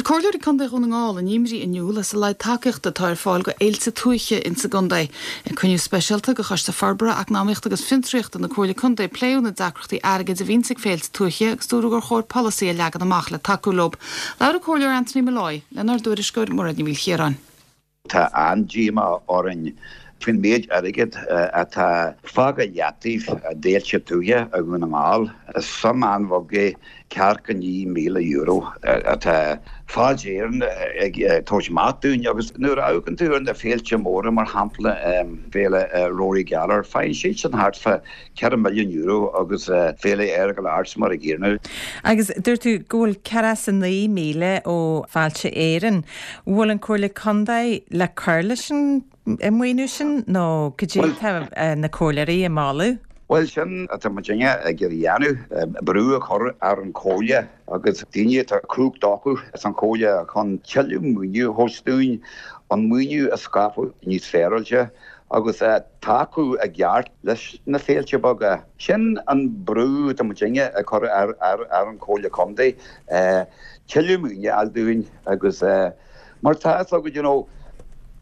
Chuir Comhairleoirí Contae Dhún na nGall a n-imní in iúl as a laghad tacaíochta atá ar fáil go fhéilte tuaithe insa gcontae. Ag cruinniú speisialta de Choiste Forbartha, Eacnamaíochta agus Fiontraíochta na Comhairle Contae pléadh na deacrachtaí airgid a bhíonns ag féilte tuaithe agus dúradh gur chóir polasaí a leagan amach le tacú leo. Labhair an Comhairleoir Anthony Molloy lenár dtuairisceoir Mairéad Ní Mhaoilchiaráin. Tá an-díomá orainn faoin méid airgid atá fágtha i leataobh d'fhéilte tuaithe i Dhún na nGall. Is suim an-bheag é ceathracha €9,000 atá Fáilte Éireann ag tabhairt amach dúinn agus nuair a amharcann tú ar na féilte móra, mar shampla Féile Rory Gallagher, faigheann siadsan thart fá €4 milliún agus Féile Earagail Arts mar a gcéanna. Agus dúirt tú go bhfuil 49,000 ó Fáilte Éireann. Bhfuil an Comhairle Contae le cur leis an maoiniú sin nó cad é atá na comhairleoirí ag moladh? Bhuel, sin atá muidinne ag iarraidh a dhéanamh, brú a chur ar an Chomhairle agus daoine atá cumhacht acu san Chomhairle chun tuilleadh maoiniú a thabhairt dúinn, an maoiniú a scaipeadh níos féaráilte agus tacú i gceart leis na féilte beaga. Sin an brú atá muidinne ag cur ar an Chomhairle Contae, tuilleadh maoiniú a fháil dúinn agus mar tá fhios agat, you know,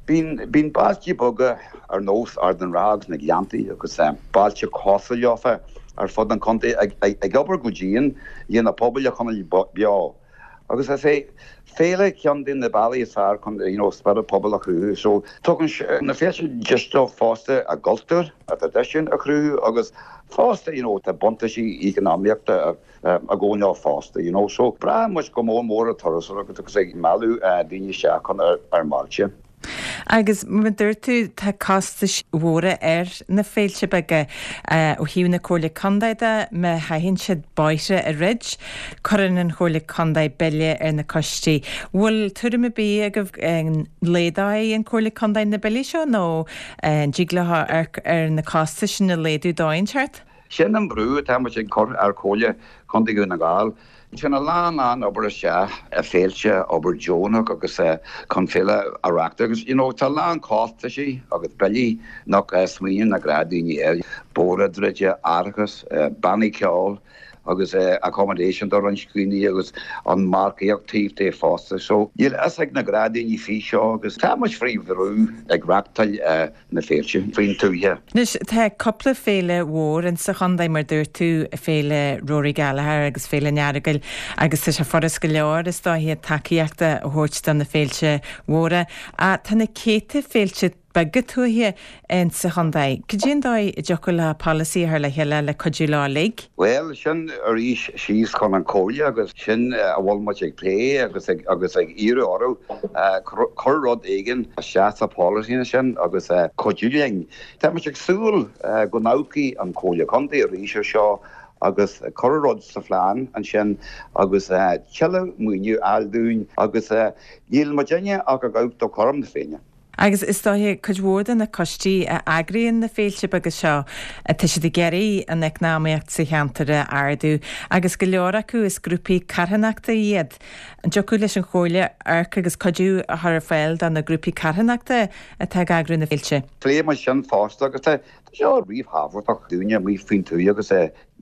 bíonn, bíonn bailte beaga ar nós Ard an Rátha agus na Gleanntaí agus bailte cosúil leofa ar fud an chontae ag, ag obair go dian le na pobail a choinneáil beo. Agus is é féile ceann de na bealaí is fearr chun you know spiorad pobail a chruthú. So tugann na féilte deis dóibh fosta a gcultúr, a dtraidisiún a chruthú agus fosta you know tá buntáistí eacnamaíochta ag gabháil leo fosta you know. So braitheann muid go mór mór ar turasóireacht agus ag mealladh daoine isteach chun ár mbailte. Agus mar a dúirt tú, tá costais mhóra ar na féilte beaga. Ó thaobh na Comhairle Contae de, má chaitheann siad bóithre a dhruid, cuireann an Chomhairle Contae bille ar na coistí. Bhfuil tuairim ar bith agaibh an laghdóidh an Chomhairle Contae na billí seo nó an dtig leo amharc ar na costais sin a laghdú dóigh inteacht? Sin an brú atá muid ag cur ar Chomhairle Contae Dhún na nGall. Téann a lán lán obair isteach i féilte, obair deonach agus chun féile a reachtáil agus you know tá a lán costaisí agus billí nach smaoiníonn na gnáthdhaoine air, bóithre a dhruid, árachas, bannaí ceoil agus accommodation do roinnt daoine agus an marcaíocht taobh de fosta. So níl a fhios ag na gnáthdhaoine faoi seo agus tá muid faoi bhrú ag reachtáil na féilte faoin tuaithe. Anois, tá cúpla féile mhór insa chontae, mar dúirt tú, Féile Rory Gallagher agus Féile an Earagail agus tá sé furast go leor, is dóiche, tacaíocht a thabhairt do na féilte mhóra. Ach tá na céadta féilte beaga tuaithe insa chontae. Cad é an dóigh a dtiocfadh leo polasaí a chur le chéile le cuidiú leo uilig? Bhuel, sin arís síos chun an Chomhairle agus sin a bhfuil muid ag plé agus ag agus ag iarraidh orthu cur rud éigin isteach sa pholasaí sin agus cuidiú linn. Tá muid ag súil go n-amharcfaidh an Chomhairle Contae arís ar seo agus cur rud sa phlean ansin agus tuilleadh maoiniú a fháil dúinn agus níl muidinne ach ag amharc do chothrom na Féinne. Agus is dóiche, cuid mhór de na coistí a eagraíonn na féilte beaga seo, tá siad ag iarraidh an eacnamaíocht sa cheantar a ardú agus go leor acu is grúpaí carthanachta iad. An dtiocfadh leis an Chomhairle amharc agus cuidiú a chur ar fáil do na grúpaí carthanachta atá ag eagrú na féilte? Phléigh muid sin fosta agus tá seo ríthábhachtach dúinne amuigh faoin tuath agus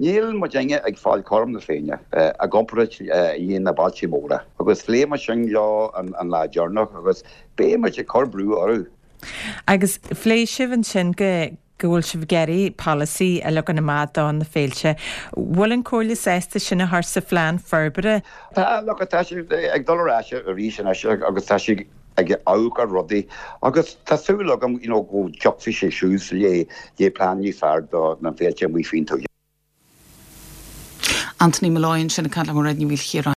níl muidinne ag fáil cothrom na Féinne i gcomparáid le na bailte móra agus phléigh muid sin leo an lá deireanach agus Beidh muid ag cur brú orthu. Agus phléigh sibh ansin go go bhfuil sibh ag iarraidh polasaí a leagan amach do na féilte. Bhfuil an Comhairle sásta sin a chur sa phlean forbartha? Tá, look, tá siad ag dul ar ais arís anois agus tá siad ag amharc ar rudaí agus tá súil agam you know go dtiocfaidh sé suas le le plean níos fearr do na féilte amuigh faoin tuath. Anthony Molloy ansin ag caint le Mairéad Ní Mhaoilchiaráin.